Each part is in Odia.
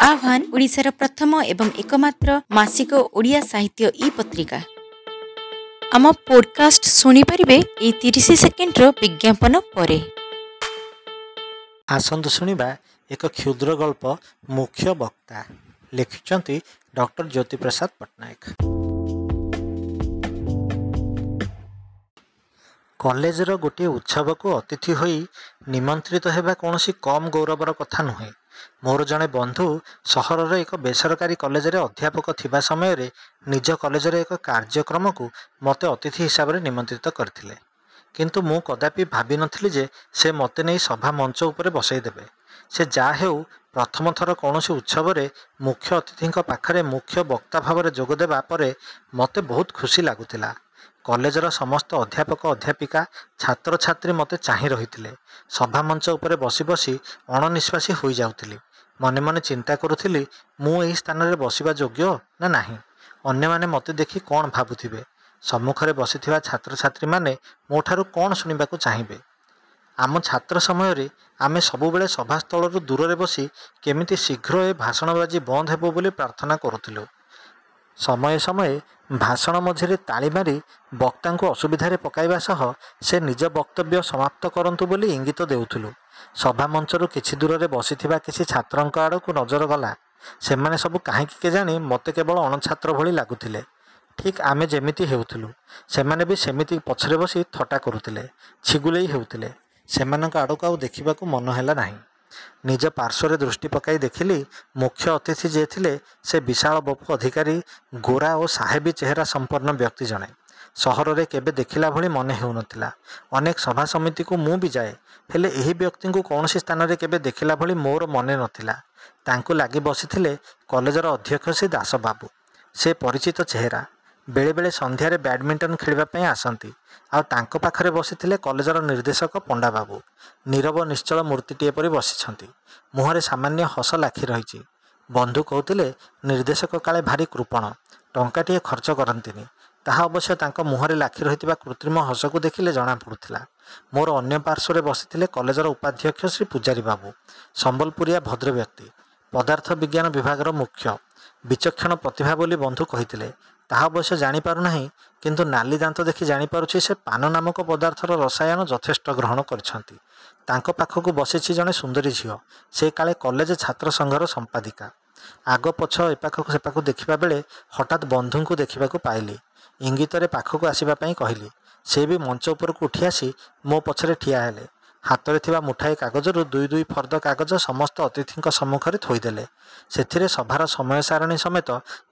ଆହ୍ୱାନ ଓଡ଼ିଶାର ପ୍ରଥମ ଏବଂ ଏକମାତ୍ର ମାସିକ ଓଡ଼ିଆ ସାହିତ୍ୟ ଇ ପତ୍ରିକା। ଆମ ପୋଡକାଷ୍ଟ ଶୁଣିପାରିବେ ଏଇ 30 ସେକେଣ୍ଡର ବିଜ୍ଞାପନ ପରେ। ଆସନ୍ତୁ ଶୁଣିବା ଏକ କ୍ଷୁଦ୍ର ଗଳ୍ପ ମୁଖ୍ୟ ବକ୍ତା, ଲେଖିଛନ୍ତି ଡକ୍ଟର ଜ୍ୟୋତିପ୍ରସାଦ ପଟ୍ଟନାୟକ। କଲେଜର ଗୋଟିଏ ଉତ୍ସବକୁ ଅତିଥି ହୋଇ ନିମନ୍ତ୍ରିତ ହେବା କୌଣସି କମ୍ ଗୌରବର କଥା ନୁହେଁ। ମୋର ଜଣେ ବନ୍ଧୁ ସହରର ଏକ ବେସରକାରୀ କଲେଜରେ ଅଧ୍ୟାପକ ଥିବା ସମୟରେ ନିଜ କଲେଜର ଏକ କାର୍ଯ୍ୟକ୍ରମକୁ ମୋତେ ଅତିଥି ହିସାବରେ ନିମନ୍ତ୍ରିତ କରିଥିଲେ। କିନ୍ତୁ ମୁଁ କଦାପି ଭାବିନଥିଲି ଯେ ସେ ମୋତେ ନେଇ ସଭା ମଞ୍ଚ ଉପରେ ବସେଇଦେବେ। ସେ ଯାହା ହେଉ, ପ୍ରଥମ ଥର କୌଣସି ଉତ୍ସବରେ ମୁଖ୍ୟ ଅତିଥିଙ୍କ ପାଖରେ ମୁଖ୍ୟ ବକ୍ତା ଭାବରେ ଯୋଗଦେବା ପରେ ମୋତେ ବହୁତ ଖୁସି ଲାଗୁଥିଲା। କଲେଜର ସମସ୍ତ ଅଧ୍ୟାପକ, ଅଧ୍ୟାପିକା, ଛାତ୍ରଛାତ୍ରୀ ମୋତେ ଚାହିଁ ରହିଥିଲେ। ସଭା ମଞ୍ଚ ଉପରେ ବସି ବସି ଅଣନିଶ୍ୱାସୀ ହୋଇଯାଉଥିଲି। ମନେ ମନେ ଚିନ୍ତା କରୁଥିଲି, ମୁଁ ଏହି ସ୍ଥାନରେ ବସିବା ଯୋଗ୍ୟ ନା ନାହିଁ? ଅନ୍ୟମାନେ ମୋତେ ଦେଖି କ'ଣ ଭାବୁଥିବେ? ସମ୍ମୁଖରେ ବସିଥିବା ଛାତ୍ରଛାତ୍ରୀମାନେ ମୋଠାରୁ କ'ଣ ଶୁଣିବାକୁ ଚାହିଁବେ? ଆମ ଛାତ୍ର ସମୟରେ ଆମେ ସବୁବେଳେ ସଭାସ୍ଥଳରୁ ଦୂରରେ ବସି କେମିତି ଶୀଘ୍ର ଏ ଭାଷଣବାଜି ବନ୍ଦ ହେବ ବୋଲି ପ୍ରାର୍ଥନା କରୁଥିଲୁ। ସମୟେ ସମୟେ ଭାଷଣ ମଝିରେ ତାଳି ମାରି ବକ୍ତାଙ୍କୁ ଅସୁବିଧାରେ ପକାଇବା ସହ ସେ ନିଜ ବକ୍ତବ୍ୟ ସମାପ୍ତ କରନ୍ତୁ ବୋଲି ଇଙ୍ଗିତ ଦେଉଥିଲୁ। ସଭା ମଞ୍ଚରୁ କିଛି ଦୂରରେ ବସିଥିବା କିଛି ଛାତ୍ରଙ୍କ ଆଡ଼କୁ ନଜର ଗଲା। ସେମାନେ ସବୁ କାହିଁକି କେଜାଣି ମୋତେ କେବଳ ଅଣଛାତ୍ର ଭଳି ଲାଗୁଥିଲେ। ଠିକ୍ ଆମେ ଯେମିତି ହେଉଥିଲୁ, ସେମାନେ ବି ସେମିତି ପଛରେ ବସି ଥଟ୍ଟା କରୁଥିଲେ, ଛିଗୁଲେଇ ହେଉଥିଲେ। ସେମାନଙ୍କ ଆଡ଼କୁ ଆଉ ଦେଖିବାକୁ ମନ ହେଲା ନାହିଁ। ନିଜ ପାର୍ଶ୍ୱରେ ଦୃଷ୍ଟି ପକାଇ ଦେଖିଲି, ମୁଖ୍ୟ ଅତିଥି ଯିଏ ଥିଲେ ସେ ବିଶାଳ ବପୁ ଅଧିକାରୀ, ଗୋରା ଓ ସାହେବୀ ଚେହେରା ସମ୍ପନ୍ନ ବ୍ୟକ୍ତି ଜଣେ। ସହରରେ କେବେ ଦେଖିଲା ଭଳି ମନେ ହେଉନଥିଲା। ଅନେକ ସଭା ସମିତିକୁ ମୁଁ ବି ଯାଏ, ହେଲେ ଏହି ବ୍ୟକ୍ତିଙ୍କୁ କୌଣସି ସ୍ଥାନରେ କେବେ ଦେଖିଲା ଭଳି ମୋର ମନେ ନଥିଲା। ତାଙ୍କୁ ଲାଗି ବସିଥିଲେ କଲେଜର ଅଧ୍ୟକ୍ଷ ଶ୍ରୀ ଦାସବାବୁ। ସେ ପରିଚିତ ଚେହେରା, ବେଳେବେଳେ ସନ୍ଧ୍ୟାରେ ବ୍ୟାଡ଼ମିଣ୍ଟନ ଖେଳିବା ପାଇଁ ଆସନ୍ତି। ଆଉ ତାଙ୍କ ପାଖରେ ବସିଥିଲେ କଲେଜର ନିର୍ଦ୍ଦେଶକ ପଣ୍ଡାବାବୁ। ନୀରବ ନିଶ୍ଚଳ ମୂର୍ତ୍ତିଟିଏ ପରି ବସିଛନ୍ତି। ମୁହଁରେ ସାମାନ୍ୟ ହସ ଲାଖି ରହିଛି। ବନ୍ଧୁ କହୁଥିଲେ, ନିର୍ଦ୍ଦେଶକ କାଳେ ଭାରି କୃପଣ, ଟଙ୍କାଟିଏ ଖର୍ଚ୍ଚ କରନ୍ତିନି। ତାହା ଅବଶ୍ୟ ତାଙ୍କ ମୁହଁରେ ଲାଖି ରହିଥିବା କୃତ୍ରିମ ହସକୁ ଦେଖିଲେ ଜଣାପଡ଼ୁଥିଲା। ମୋର ଅନ୍ୟ ପାର୍ଶ୍ୱରେ ବସିଥିଲେ କଲେଜର ଉପାଧ୍ୟକ୍ଷ ଶ୍ରୀ ପୂଜାରୀ ବାବୁ। ସମ୍ବଲପୁରିଆ ଭଦ୍ରବ୍ୟକ୍ତି, ପଦାର୍ଥ ବିଜ୍ଞାନ ବିଭାଗର ମୁଖ୍ୟ, ବିଚକ୍ଷଣ ପ୍ରତିଭା ବୋଲି ବନ୍ଧୁ କହିଥିଲେ। ତାହା ଅବଶ୍ୟ ଜାଣିପାରୁନାହିଁ, କିନ୍ତୁ ନାଲି ଦାନ୍ତ ଦେଖି ଜାଣିପାରୁଛି ସେ ପାନ ନାମକ ପଦାର୍ଥର ରସାୟନ ଯଥେଷ୍ଟ ଗ୍ରହଣ କରିଛନ୍ତି। ତାଙ୍କ ପାଖକୁ ବସିଛି ଜଣେ ସୁନ୍ଦରୀ ଝିଅ। ସେ କାଳେ କଲେଜ ଛାତ୍ର ସଂଘର ସମ୍ପାଦିକା। ଆଗ ପଛ ଏପାଖକୁ ସେପାଖକୁ ଦେଖିବା ବେଳେ ହଠାତ୍ ବନ୍ଧୁଙ୍କୁ ଦେଖିବାକୁ ପାଇଲି। ଇଙ୍ଗିତରେ ପାଖକୁ ଆସିବା ପାଇଁ କହିଲି। ସେ ବି ମଞ୍ଚ ଉପରକୁ ଉଠି ଆସି ମୋ ପଛରେ ଠିଆ ହେଲେ। ହାତରେ ଥିବା ମୁଠାଏ କାଗଜରୁ ଦୁଇ ଦୁଇ ଫର୍ଦ୍ଦ କାଗଜ ସମସ୍ତ ଅତିଥିଙ୍କ ସମ୍ମୁଖରେ ଥୋଇଦେଲେ। ସେଥିରେ ସଭାର ସମୟ ସାରଣୀ ସମେତ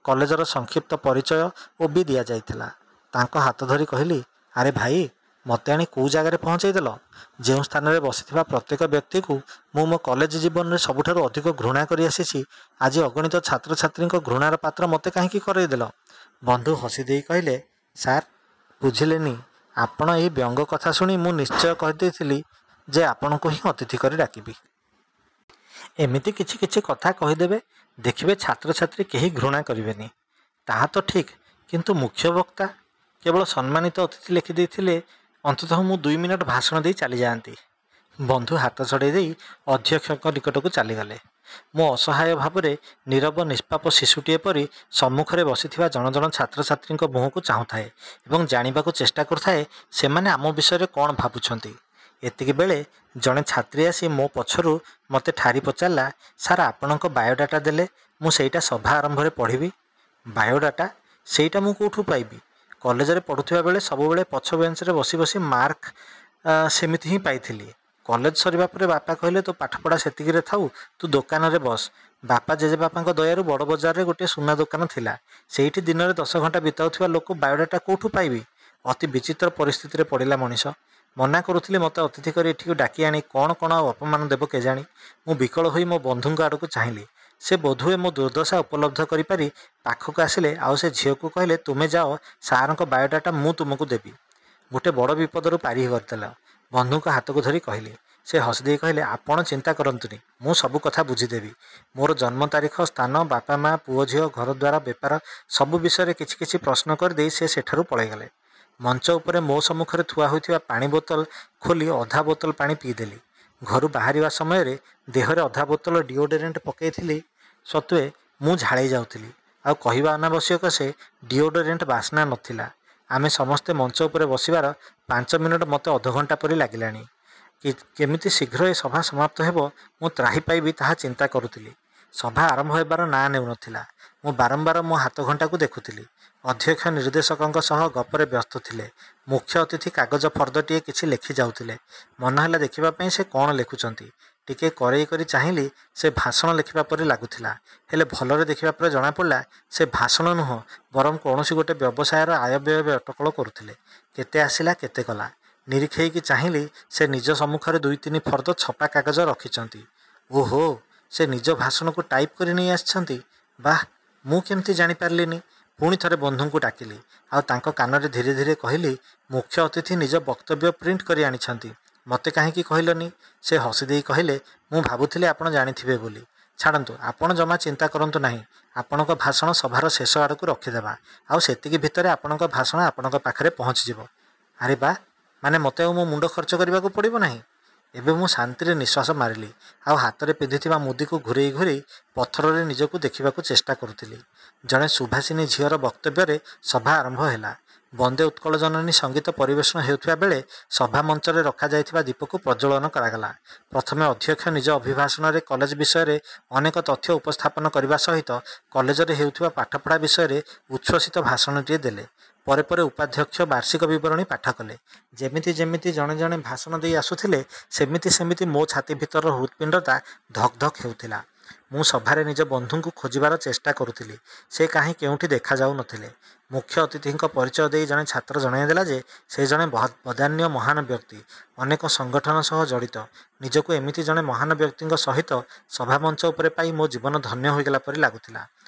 କଲେଜର ସଂକ୍ଷିପ୍ତ ପରିଚୟ ଓ ବି ଦିଆଯାଇଥିଲା। ତାଙ୍କ ହାତ ଧରି କହିଲି, ଆରେ ଭାଇ, ମୋତେ ଆଣି କେଉଁ ଜାଗାରେ ପହଞ୍ଚେଇଦେଲ? ଯେଉଁ ସ୍ଥାନରେ ବସିଥିବା ପ୍ରତ୍ୟେକ ବ୍ୟକ୍ତିକୁ ମୁଁ ମୋ କଲେଜ ଜୀବନରେ ସବୁଠାରୁ ଅଧିକ ଘୃଣା କରି ଆସିଛି, ଆଜି ଅଗଣିତ ଛାତ୍ରଛାତ୍ରୀଙ୍କ ଘୃଣାର ପାତ୍ର ମୋତେ କାହିଁକି କରେଇଦେଲ? ବନ୍ଧୁ ହସି ଦେଇ କହିଲେ, ସାର୍ ବୁଝିଲେନି, ଆପଣ ଏହି ବ୍ୟଙ୍ଗ କଥା ଶୁଣି ମୁଁ ନିଶ୍ଚୟ କହିଦେଇଥିଲି ଯେ ଆପଣଙ୍କୁ ହିଁ ଅତିଥି କରି ଡାକିବି। ଏମିତି କିଛି କିଛି କଥା କହିଦେବେ, ଦେଖିବେ ଛାତ୍ରଛାତ୍ରୀ କେହି ଘୃଣା କରିବେନି। ତାହା ତ ଠିକ୍, କିନ୍ତୁ ମୁଖ୍ୟ ବକ୍ତା କେବଳ ସମ୍ମାନିତ ଅତିଥି ଲେଖିଦେଇଥିଲେ ଅନ୍ତତଃ ମୁଁ 2 ମିନିଟ୍ ଭାଷଣ ଦେଇ ଚାଲିଯାଆନ୍ତି। ବନ୍ଧୁ ହାତ ଛଡ଼େଇ ଦେଇ ଅଧ୍ୟକ୍ଷଙ୍କ ନିକଟକୁ ଚାଲିଗଲେ। ମୁଁ ଅସହାୟ ଭାବରେ ନୀରବ ନିଷ୍ପାପ ଶିଶୁଟିଏ ପରି ସମ୍ମୁଖରେ ବସିଥିବା ଜଣ ଜଣ ଛାତ୍ରଛାତ୍ରୀଙ୍କ ମୁହଁକୁ ଚାହୁଁଥାଏ ଏବଂ ଜାଣିବାକୁ ଚେଷ୍ଟା କରୁଥାଏ ସେମାନେ ଆମ ବିଷୟରେ କ'ଣ ଭାବୁଛନ୍ତି। ଏତିକି ବେଳେ ଜଣେ ଛାତ୍ରୀ ଆସି ମୋ ପଛରୁ ମୋତେ ଠାରି ପଚାରିଲା, ସାର୍ ଆପଣଙ୍କ ବାୟୋଡାଟା ଦେଲେ ମୁଁ ସେଇଟା ସଭା ଆରମ୍ଭରେ ପଢ଼ିବି। ବାୟୋଡାଟା? ସେଇଟା ମୁଁ କେଉଁଠୁ ପାଇବି? କଲେଜରେ ପଢ଼ୁଥିବା ବେଳେ ସବୁବେଳେ ପଛ ବେଞ୍ଚରେ ବସି ବସି ମାର୍କ ସେମିତି ହିଁ ପାଇଥିଲି। କଲେଜ ସରିବା ପରେ ବାପା କହିଲେ, ତୋ ପାଠପଢ଼ା ସେତିକିରେ ଥାଉ, ତୁ ଦୋକାନରେ ବସ। ବାପା ଜେଜେବାପାଙ୍କ ଦୟାରୁ ବଡ଼ ବଜାରରେ ଗୋଟିଏ ସୁନା ଦୋକାନ ଥିଲା। ସେଇଠି ଦିନରେ 10 ଘଣ୍ଟା ବିତାଉଥିବା ଲୋକ ବାୟୋଡାଟା କେଉଁଠୁ ପାଇବି? ଅତି ବିଚିତ୍ର ପରିସ୍ଥିତିରେ ପଡ଼ିଲା ମଣିଷ। ମନା କରୁଥିଲି ମୋତେ ଅତିଥି କରି ଏଠିକୁ ଡାକି ଆଣି କ'ଣ କ'ଣ ଆଉ ଅପମାନ ଦେବ କେଜାଣି। ମୁଁ ବିକଳ ହୋଇ ମୋ ବନ୍ଧୁଙ୍କ ଆଡ଼କୁ ଚାହିଁଲି। ସେ ବୋଧହୁଏ ମୋ ଦୁର୍ଦ୍ଦଶା ଉପଲବ୍ଧ କରିପାରି ପାଖକୁ ଆସିଲେ ଆଉ ସେ ଝିଅକୁ କହିଲେ, ତୁମେ ଯାଅ, ସାର୍ଙ୍କ ବାୟୋଡାଟା ମୁଁ ତୁମକୁ ଦେବି। ଗୋଟେ ବଡ଼ ବିପଦରୁ ପାରି କରିଦେଲ। ବନ୍ଧୁଙ୍କ ହାତକୁ ଧରି କହିଲି। ସେ ହସିଦେଇ କହିଲେ, ଆପଣ ଚିନ୍ତା କରନ୍ତୁନି, ମୁଁ ସବୁ କଥା ବୁଝିଦେବି। ମୋର ଜନ୍ମ ତାରିଖ, ସ୍ଥାନ, ବାପା ମା, ପୁଅ ଝିଅ, ଘରଦ୍ୱାର, ବେପାର ସବୁ ବିଷୟରେ କିଛି କିଛି ପ୍ରଶ୍ନ କରିଦେଇ ସେ ସେଠାରୁ ପଳାଇଗଲେ। ମଞ୍ଚ ଉପରେ ମୋ ସମ୍ମୁଖରେ ଥୁଆ ହୋଇଥିବା ପାଣି ବୋତଲ ଖୋଲି ଅଧା ବୋତଲ ପାଣି ପିଇଦେଲି। ଘରୁ ବାହାରିବା ସମୟରେ ଦେହରେ ଅଧା ବୋତଲ ଡିଓଡୋରେଣ୍ଟ ପକାଇଥିଲି। ସତ୍ତ୍ୱେ ମୁଁ ଝାଳେଇ ଯାଉଥିଲି। ଆଉ କହିବା ଅନାବଶ୍ୟକ, ସେ ଡିଓଡୋରେଣ୍ଟ ବାସ୍ନା ନଥିଲା। ଆମେ ସମସ୍ତେ ମଞ୍ଚ ଉପରେ ବସିବାର 5 ମିନିଟ୍ ମୋତେ ଅଧଘଣ୍ଟା ପରି ଲାଗିଲାଣି। କେମିତି ଶୀଘ୍ର ଏ ସଭା ସମାପ୍ତ ହେବ, ମୁଁ ତ୍ରାହି ପାଇବି, ତାହା ଚିନ୍ତା କରୁଥିଲି। ସଭା ଆରମ୍ଭ ହେବାର ନାଁ ନେଉନଥିଲା। ମୁଁ ବାରମ୍ବାର ମୋ ହାତଘଣ୍ଟାକୁ ଦେଖୁଥିଲି। ଅଧ୍ୟକ୍ଷ ନିର୍ଦ୍ଦେଶକଙ୍କ ସହ ଗପରେ ବ୍ୟସ୍ତ ଥିଲେ। ମୁଖ୍ୟ ଅତିଥି କାଗଜ ଫର୍ଦ୍ଦଟିଏ କିଛି ଲେଖି ଯାଉଥିଲେ। ମନ ହେଲା ଦେଖିବା ପାଇଁ ସେ କ'ଣ ଲେଖୁଛନ୍ତି। ଟିକେ କରେଇ କରି ଚାହିଁଲି, ସେ ଭାଷଣ ଲେଖିବା ପରି ଲାଗୁଥିଲା। ହେଲେ ଭଲରେ ଦେଖିବା ପରେ ଜଣାପଡ଼ିଲା, ସେ ଭାଷଣ ନୁହଁ, ବରଂ କୌଣସି ଗୋଟେ ବ୍ୟବସାୟର ଆୟବ୍ୟୟ ଅଟକଳ କରୁଥିଲେ। କେତେ ଆସିଲା, କେତେ ଗଲା। ନିରୀକ୍ଷେଇକି ଚାହିଁଲି, ସେ ନିଜ ସମ୍ମୁଖରେ 2-3 ଫର୍ଦ୍ଦ ଛପା କାଗଜ ରଖିଛନ୍ତି। ଓହୋ, ସେ ନିଜ ଭାଷଣକୁ ଟାଇପ୍ କରି ନେଇ ଆସିଛନ୍ତି। ବାଃ, ମୁଁ କେମିତି ଜାଣିପାରିଲିନି? ପୁଣି ଥରେ ବନ୍ଧୁଙ୍କୁ ଡାକିଲି ଆଉ ତାଙ୍କ କାନରେ ଧୀରେ ଧୀରେ କହିଲି, ମୁଖ୍ୟ ଅତିଥି ନିଜ ବକ୍ତବ୍ୟ ପ୍ରିଣ୍ଟ କରି ଆଣିଛନ୍ତି, ମୋତେ କାହିଁକି କହିଲନି? ସେ ହସିଦେଇ କହିଲେ, ମୁଁ ଭାବୁଥିଲି ଆପଣ ଜାଣିଥିବେ ବୋଲି। ଛାଡ଼ନ୍ତୁ, ଆପଣ ଜମା ଚିନ୍ତା କରନ୍ତୁ ନାହିଁ। ଆପଣଙ୍କ ଭାଷଣ ସଭାର ଶେଷ ଆଡ଼କୁ ରଖିଦେବା, ଆଉ ସେତିକି ଭିତରେ ଆପଣଙ୍କ ଭାଷଣ ଆପଣଙ୍କ ପାଖରେ ପହଞ୍ଚିଯିବ। ଆରେ ବା, ମାନେ ମୋତେ ଆଉ ମୋ ମୁଣ୍ଡ ଖର୍ଚ୍ଚ କରିବାକୁ ପଡ଼ିବ ନାହିଁ। ଏବେ ମୁଁ ଶାନ୍ତିରେ ନିଶ୍ୱାସ ମାରିଲି ଆଉ ହାତରେ ପିନ୍ଧିଥିବା ମୁଦିକୁ ଘୂରେଇ ଘୂରେଇ ପଥରରେ ନିଜକୁ ଦେଖିବାକୁ ଚେଷ୍ଟା କରୁଥିଲି। ଜଣେ ସୁଭାଷିନୀ ଝିଅର ବକ୍ତବ୍ୟରେ ସଭା ଆରମ୍ଭ ହେଲା। ବନ୍ଦେ ଉତ୍କଳ ଜନନୀ ସଙ୍ଗୀତ ପରିବେଷଣ ହେଉଥିବା ବେଳେ ସଭା ମଞ୍ଚରେ ରଖାଯାଇଥିବା ଦୀପକୁ ପ୍ରଜ୍ୱଳନ କରାଗଲା। ପ୍ରଥମେ ଅଧ୍ୟକ୍ଷ ନିଜ ଅଭିଭାଷଣରେ କଲେଜ ବିଷୟରେ ଅନେକ ତଥ୍ୟ ଉପସ୍ଥାପନ କରିବା ସହିତ କଲେଜରେ ହେଉଥିବା ପାଠପଢ଼ା ବିଷୟରେ ଉଚ୍ଛ୍ୱସିତ ଭାଷଣଟିଏ ଦେଲେ। ପରେ ପରେ ଉପାଧ୍ୟକ୍ଷ ବାର୍ଷିକ ବିବରଣୀ ପାଠ କଲେ। ଯେମିତି ଯେମିତି ଜଣେ ଜଣେ ଭାଷଣ ଦେଇ ଆସୁଥିଲେ, ସେମିତି ସେମିତି ମୋ ଛାତି ଭିତରର ହୃତ୍ପିଣ୍ଡଟା ଧକ୍ ଧକ୍ ହେଉଥିଲା। ମୁଁ ସଭାରେ ନିଜ ବନ୍ଧୁଙ୍କୁ ଖୋଜିବାର ଚେଷ୍ଟା କରୁଥିଲି। ସେ କାହିଁ କେଉଁଠି ଦେଖାଯାଉନଥିଲେ। ମୁଖ୍ୟ ଅତିଥିଙ୍କ ପରିଚୟ ଦେଇ ଜଣେ ଛାତ୍ର ଜଣାଇଦେଲା ଯେ ସେ ଜଣେ ବଦାନ୍ୟ ମହାନ ବ୍ୟକ୍ତି, ଅନେକ ସଂଗଠନ ସହ ଜଡ଼ିତ। ନିଜକୁ ଏମିତି ଜଣେ ମହାନ ବ୍ୟକ୍ତିଙ୍କ ସହିତ ସଭାମଞ୍ଚ ଉପରେ ପାଇ ମୋ ଜୀବନ ଧନ୍ୟ ହୋଇଗଲା ପରି ଲାଗୁଥିଲା।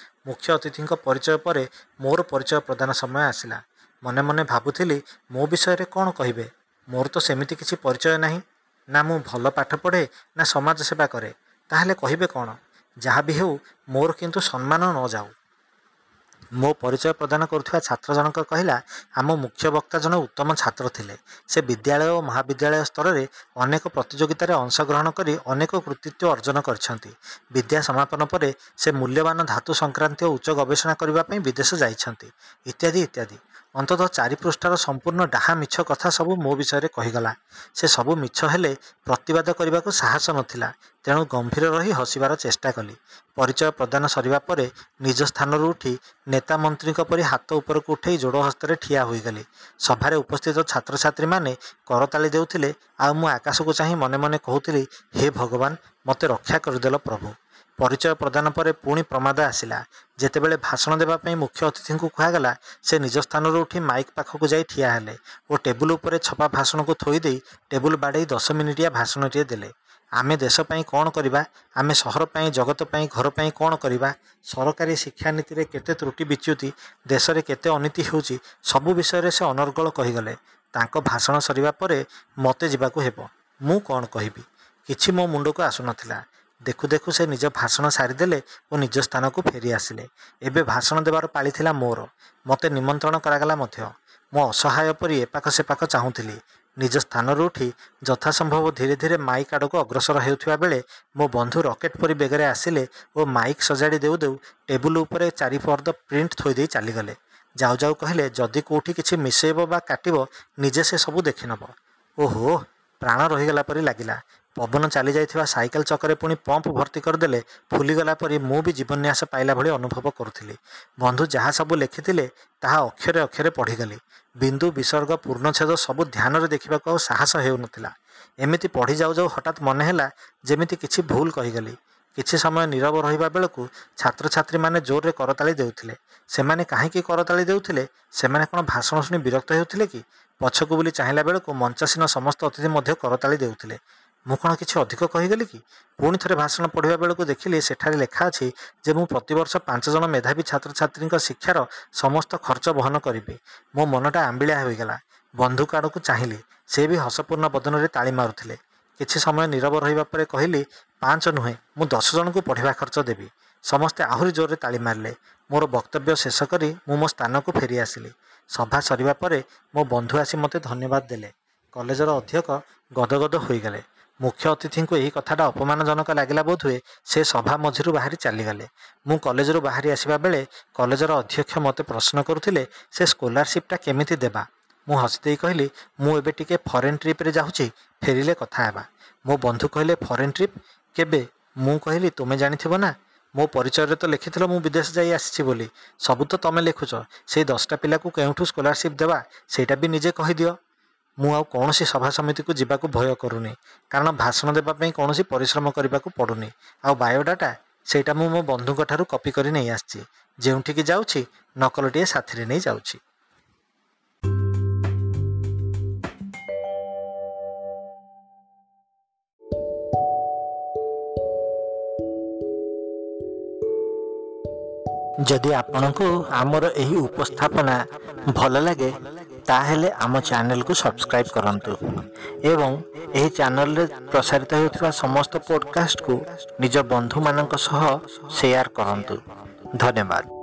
ମୁଖ୍ୟ ଅତିଥିଙ୍କ ପରିଚୟ ପରେ ମୋର ପରିଚୟ ପ୍ରଦାନ ସମୟ ଆସିଲା। ମନେ ମନେ ଭାବୁଥିଲି, ମୋ ବିଷୟରେ କ'ଣ କହିବେ? ମୋର ତ ସେମିତି କିଛି ପରିଚୟ ନାହିଁ। ନା ମୁଁ ଭଲ ପାଠ ପଢ଼େ, ନା ସମାଜ ସେବା କରେ। ତାହେଲେ କହିବେ କ'ଣ? ଯାହା ବି ହେଉ, ମୋର କିନ୍ତୁ ସମ୍ମାନ ନ ଯାଉ। ମୋ ପରିଚୟ ପ୍ରଦାନ କରୁଥିବା ଛାତ୍ର ଜଣକ କହିଲା, ଆମ ମୁଖ୍ୟ ବକ୍ତା ଜଣେ ଉତ୍ତମ ଛାତ୍ର ଥିଲେ। ସେ ବିଦ୍ୟାଳୟ ଓ ମହାବିଦ୍ୟାଳୟ ସ୍ତରରେ ଅନେକ ପ୍ରତିଯୋଗିତାରେ ଅଂଶଗ୍ରହଣ କରି ଅନେକ କୃତିତ୍ୱ ଅର୍ଜନ କରିଛନ୍ତି। ବିଦ୍ୟା ସମାପନ ପରେ ସେ ମୂଲ୍ୟବାନ ଧାତୁ ସଂକ୍ରାନ୍ତୀୟ ଉଚ୍ଚ ଗବେଷଣା କରିବା ପାଇଁ ବିଦେଶ ଯାଇଛନ୍ତି, ଇତ୍ୟାଦି ଇତ୍ୟାଦି। ଅନ୍ତତଃ 4 ପୃଷ୍ଠାର ସମ୍ପୂର୍ଣ୍ଣ ଡାହା ମିଛ କଥା ସବୁ ମୋ ବିଷୟରେ କହିଗଲା। ସେ ସବୁ ମିଛ ହେଲେ ପ୍ରତିବାଦ କରିବାକୁ ସାହସ ନଥିଲା, ତେଣୁ ଗମ୍ଭୀର ରହି ହସିବାର ଚେଷ୍ଟା କଲି। ପରିଚୟ ପ୍ରଦାନ ସରିବା ପରେ ନିଜ ସ୍ଥାନରୁ ଉଠି ନେତା ମନ୍ତ୍ରୀଙ୍କ ପରି ହାତ ଉପରକୁ ଉଠେଇ ଯୋଡ଼ ହସ୍ତରେ ଠିଆ ହୋଇଗଲି। ସଭାରେ ଉପସ୍ଥିତ ଛାତ୍ରଛାତ୍ରୀମାନେ କରତାଳି ଦେଉଥିଲେ ଆଉ ମୁଁ ଆକାଶକୁ ଚାହିଁ ମନେ ମନେ କହୁଥିଲି, ହେ ଭଗବାନ, ମୋତେ ରକ୍ଷା କରିଦେଲ ପ୍ରଭୁ। ପରିଚୟ ପ୍ରଦାନ ପରେ ପୁଣି ପ୍ରମାଦ ଆସିଲା। ଯେତେବେଳେ ଭାଷଣ ଦେବା ପାଇଁ ମୁଖ୍ୟ ଅତିଥିଙ୍କୁ କୁହାଗଲା, ସେ ନିଜ ସ୍ଥାନରୁ ଉଠି ମାଇକ୍ ପାଖକୁ ଯାଇ ଠିଆ ହେଲେ ଓ ଟେବୁଲ ଉପରେ ଛପା ଭାଷଣକୁ ଥୋଇଦେଇ ଟେବୁଲ ବାଡ଼େଇ 10 ମିନିଟିଆ ଭାଷଣଟିଏ ଦେଲେ। ଆମେ ଦେଶ ପାଇଁ କ'ଣ କରିବା, ଆମେ ସହର ପାଇଁ, ଜଗତ ପାଇଁ, ଘର ପାଇଁ କ'ଣ କରିବା, ସରକାରୀ ଶିକ୍ଷାନୀତିରେ କେତେ ତ୍ରୁଟି ବିଚ୍ୟୁତି, ଦେଶରେ କେତେ ଅନୀତି ହେଉଛି, ସବୁ ବିଷୟରେ ସେ ଅନର୍ଗଳ କହିଗଲେ। ତାଙ୍କ ଭାଷଣ ସରିବା ପରେ ମୋତେ ଯିବାକୁ ହେବ। ମୁଁ କ'ଣ କହିବି, କିଛି ମୋ ମୁଣ୍ଡକୁ ଆସୁନଥିଲା। ଦେଖୁ ଦେଖୁ ସେ ନିଜ ଭାଷଣ ସାରିଦେଲେ ଓ ନିଜ ସ୍ଥାନକୁ ଫେରି ଆସିଲେ। ଏବେ ଭାଷଣ ଦେବାର ପାଳି ଥିଲା ମୋର। ମୋତେ ନିମନ୍ତ୍ରଣ କରାଗଲା ମଧ୍ୟ। ମୁଁ ଅସହାୟ ପରି ଏପାଖ ସେପାଖ ଚାହୁଁଥିଲି। ନିଜ ସ୍ଥାନରୁ ଉଠି ଯଥାସମ୍ଭବ ଧୀରେ ଧୀରେ ମାଇକ୍ ଆଡ଼କୁ ଅଗ୍ରସର ହେଉଥିବା ବେଳେ ମୋ ବନ୍ଧୁ ରକେଟ୍ ପରି ବେଗରେ ଆସିଲେ ଓ ମାଇକ୍ ସଜାଡ଼ି ଦେଉ ଦେଉ ଟେବୁଲ ଉପରେ 4 ଫର୍ଦ୍ଦ ପ୍ରିଣ୍ଟ ଥୋଇଦେଇ ଚାଲିଗଲେ। ଯାଉ ଯାଉ କହିଲେ, ଯଦି କେଉଁଠି କିଛି ମିଶେଇବ ବା କାଟିବ, ନିଜେ ସେ ସବୁ ଦେଖିନେବ। ଓହୋ, ପ୍ରାଣ ରହିଗଲା ପରି ଲାଗିଲା। ପବନ ଚାଲି ଯାଇଥିବା ସାଇକେଲ ଚକରେ ପୁଣି ପମ୍ପ ଭର୍ତ୍ତି କରିଦେଲେ ଫୁଲିଗଲା ପରି ମୁଁ ବି ଜୀବନ୍ୟାସ ପାଇଲା ଭଳି ଅନୁଭବ କରୁଥିଲି। ବନ୍ଧୁ ଯାହା ସବୁ ଲେଖିଥିଲେ ତାହା ଅକ୍ଷରେ ଅକ୍ଷରେ ପଢ଼ିଗଲି। ବିନ୍ଦୁ, ବିସର୍ଗ, ପୂର୍ଣ୍ଣଚ୍ଛେଦ ସବୁ ଧ୍ୟାନରେ ଦେଖିବାକୁ ଆଉ ସାହସ ହେଉନଥିଲା। ଏମିତି ପଢ଼ି ଯାଉ ଯାଉ ହଠାତ୍ ମନେ ହେଲା ଯେମିତି କିଛି ଭୁଲ କହିଗଲି। କିଛି ସମୟ ନୀରବ ରହିବା ବେଳକୁ ଛାତ୍ରଛାତ୍ରୀମାନେ ଜୋରରେ କରତାଳି ଦେଉଥିଲେ। ସେମାନେ କାହିଁକି କରତାଳି ଦେଉଥିଲେ? ସେମାନେ କ'ଣ ଭାଷଣ ଶୁଣି ବିରକ୍ତ ହେଉଥିଲେ କି? ପଛକୁ ବୁଲି ଚାହିଁଲା ବେଳକୁ ମଞ୍ଚାସୀନ ସମସ୍ତ ଅତିଥି ମଧ୍ୟ କରତାଳି ଦେଉଥିଲେ। ମୁଁ କ'ଣ କିଛି ଅଧିକ କହିଗଲି କି? ପୁଣି ଥରେ ଭାଷଣ ପଢ଼ିବା ବେଳକୁ ଦେଖିଲି ସେଠାରେ ଲେଖା ଅଛି ଯେ ମୁଁ ପ୍ରତିବର୍ଷ 5 ଜଣ ମେଧାବୀ ଛାତ୍ରଛାତ୍ରୀଙ୍କ ଶିକ୍ଷାର ସମସ୍ତ ଖର୍ଚ୍ଚ ବହନ କରିବି। ମୋ ମନଟା ଆମ୍ବିଳା ହୋଇଗଲା। ବନ୍ଧୁକ ଆଡ଼କୁ ଚାହିଁଲି, ସେ ବି ହସପୂର୍ଣ୍ଣ ବଦନରେ ତାଳି ମାରୁଥିଲେ। କିଛି ସମୟ ନୀରବ ରହିବା ପରେ କହିଲି, 5 ନୁହେଁ, ମୁଁ 10 ଜଣଙ୍କୁ ପଢ଼ିବା ଖର୍ଚ୍ଚ ଦେବି। ସମସ୍ତେ ଆହୁରି ଜୋରରେ ତାଳି ମାରିଲେ। ମୋର ବକ୍ତବ୍ୟ ଶେଷ କରି ମୁଁ ମୋ ସ୍ଥାନକୁ ଫେରି ଆସିଲି। ସଭା ସରିବା ପରେ ମୋ ବନ୍ଧୁ ଆସି ମୋତେ ଧନ୍ୟବାଦ ଦେଲେ। କଲେଜର ଅଧ୍ୟକ୍ଷ ଗଦଗଦ ହୋଇଗଲେ। ମୁଖ୍ୟ ଅତିଥିଙ୍କୁ ଏହି କଥାଟା ଅପମାନଜନକ ଲାଗିଲା ବୋଧହୁଏ, ସେ ସଭା ମଝିରୁ ବାହାରି ଚାଲିଗଲେ। ମୁଁ କଲେଜରୁ ବାହାରି ଆସିବା ବେଳେ କଲେଜର ଅଧ୍ୟକ୍ଷ ମୋତେ ପ୍ରଶ୍ନ କରୁଥିଲେ, ସେ ସ୍କଲାରସିପ୍ଟା କେମିତି ଦେବା? ମୁଁ ହସିଦେଇ କହିଲି, ମୁଁ ଏବେ ଟିକେ ଫରେନ୍ ଟ୍ରିପ୍ରେ ଯାଉଛି, ଫେରିଲେ କଥା ହେବା। ମୋ ବନ୍ଧୁ କହିଲେ, ଫରେନ୍ ଟ୍ରିପ୍ କେବେ? ମୁଁ କହିଲି, ତୁମେ ଜାଣିଥିବ ନା, ମୋ ପରିଚୟରେ ତ ଲେଖିଥିଲ ମୁଁ ବିଦେଶ ଯାଇ ଆସିଛି ବୋଲି। ସବୁ ତ ତମେ ଲେଖୁଛ, ସେଇ 10ଟା ପିଲାକୁ କେଉଁଠୁ ସ୍କଲାରସିପ୍ ଦେବା ସେଇଟା ବି ନିଜେ କହିଦିଅ। ମୁଁ ଆଉ କୌଣସି ସଭା ସମିତିକୁ ଯିବାକୁ ଭୟ କରୁନି, କାରଣ ଭାଷଣ ଦେବା ପାଇଁ କୌଣସି ପରିଶ୍ରମ କରିବାକୁ ପଡ଼ୁନି। ଆଉ ବାୟୋଡାଟା, ସେଇଟା ମୁଁ ମୋ ବନ୍ଧୁଙ୍କ ଠାରୁ କପି କରି ନେଇ ଆସିଛି। ଯେଉଁଠିକି ଯାଉଛି ନକଲଟିଏ ସାଥିରେ ନେଇ ଯାଉଛି। ଯଦି ଆପଣଙ୍କୁ ଆମର ଏହି ଉପସ୍ଥାପନା ଭଲ ଲାଗେ, ତାହେଲେ ଆମ ଚ୍ୟାନେଲକୁ ସବସ୍କ୍ରାଇବ୍ କରନ୍ତୁ ଏବଂ ଏହି ଚ୍ୟାନେଲରେ ପ୍ରସାରିତ ହେଉଥିବା ସମସ୍ତ ପଡ଼କାଷ୍ଟକୁ ନିଜ ବନ୍ଧୁମାନଙ୍କ ସହ ସେୟାର କରନ୍ତୁ। ଧନ୍ୟବାଦ।